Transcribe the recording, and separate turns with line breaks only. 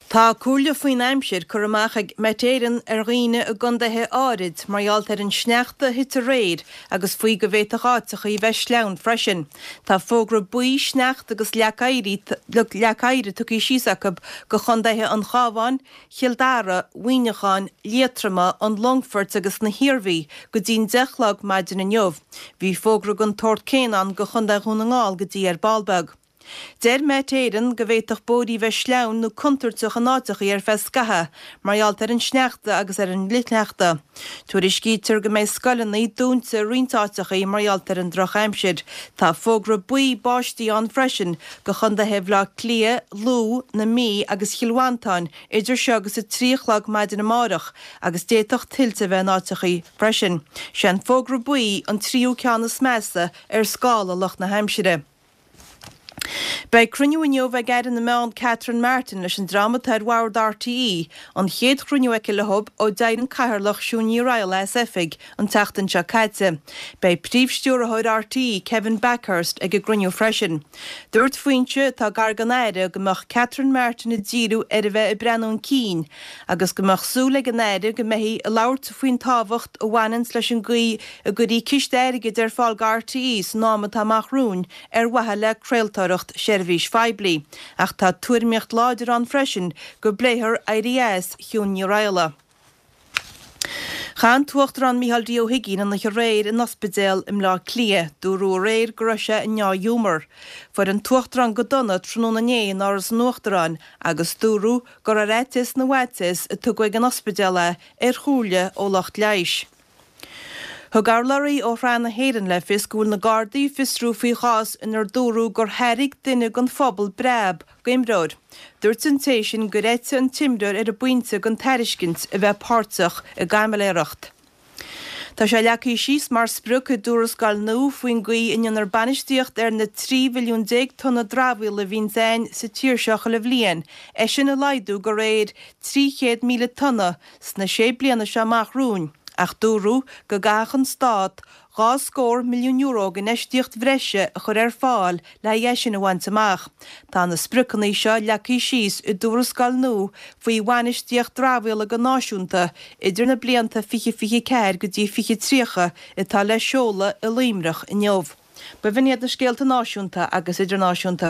Tá comhairle faoin aimsir curtha amach ag Met Éireann ar dhaoine i gcontaetha áirid mar gheall ar an sneachta a thit aréir agus faoi go bhféadfadh áiteachaí a bheith sleamhain freisin. Tá fógra buí sneachta agus leac oighir tugtha síos acu go chontaetha an Chabháin, Chill Dara, Mhuineacháin, Liatroma, an Longfoirt agus na hIarmhí go dtí'n 10 a chlog maidin inniu. Bhí fógra den tsórt céanna ann go Chontae Dhún na nGall go dtí ar ball beag. Deir Met Éireann go bhféadfadh bóithrí bheith sleamhain nó contúirteach in áiteachaí ar feadh scaithe mar gheall ar an sneachta agus ar an fhlichshneachta. Tuairiscítear go mbeidh scoileanna dúnta i roinnt áiteachaí mar gheall ar an drochaimsir. Tá fógra buí báistí ann freisin go chontaetha Bhaile Átha Cliath, Lú, na Mí agus Chill Mhantáin idir seo agus 3 a chlog maidin amárach agus d'fhéadfadh tuilte a bheith in áiteachaí freisin. Sé an fógra buí an tríú ceann is measa ar scála lucht na haimsire. Beidh cruinniú inniu ag Aire na Meán Catherine Martin leis an dream atá ar bhord RTÉ, an chéad chruinniú aici leo ó d'éirigh an Cathaoirleach Siún Ní Raghallaigh as oifig an tseachtain seo caite. Beidh Príomh-Stiúrthóir RTÉ Kevin Bakhurst ag an gcruinniú freisin. Dúirt foinse atá gar don Aire go mbeadh Catherine Martin ag díriú ar a bheith ag breathnú chun cinn agus go mbeadh súil ag an Aire go mbeifí ag labhairt faoin tábhacht a bhaineanns leis an gcaoi a gcuirfí ciste airgid ar fáil go RTÉ san am atá amach romhainn ar mhaithe le craoltóireacht seirbhís phoiblí, ach tá tuairimíocht láidir ann freisin go bpléifear éirí as Shiún Ní Raghallaigh. Chaith an tUachtarán Micheál D. Ó hUigínn an oíche aréir in ospidéal i mBleá Cliath. Dúradh aréir go raibh sé i ndea-ghiúmar. Fuair an tUachtarán go dona tráthnóna inné in Áras an Uachtaráin agus dúradh gur ar fhaitíos na bhfaitíos a tugadh ag an ospidéal é ar chomhairle ó lucht leighis. Thug urlabhraí ó Shraith na hÉireann le fios go bhfuil na Gardaí ag fiosrú faoi chás inar dúradh gur thairg duine den phobal breab d'imreoir. Dúirt an té sin gur eitigh an t-imreoir ar an bpointe den tairiscint a bheith páirteach i gcaimiléireacht. Tá sé leagtha síos mar sprioc i dtuarascáil nua faoin gcaoi a ndéanfar bainistíocht ar na 13 mhilliún tonna dramhaíola a bhíonns againn sa tír seo chuile bhliain, é sin a laghdú de réir 300,000 tonna sna sé bliana seo amach romhainn, ach dúradh go gcaithfeadh an Stát €2 milliún d'infheistíocht bhreise a chur ar fáil le haghaidh é sin a bhaint amach. Tá na spriocanna seo leagtha síos i dtuarascáil nua faoi bhainistíocht dramhaíola go náisiúnta idir na blianta 2024 go dtí 2030 atá le seoladh i Luimneach inniu. B'in iad na scéalta náisiúnta agus idirnáisiúnta.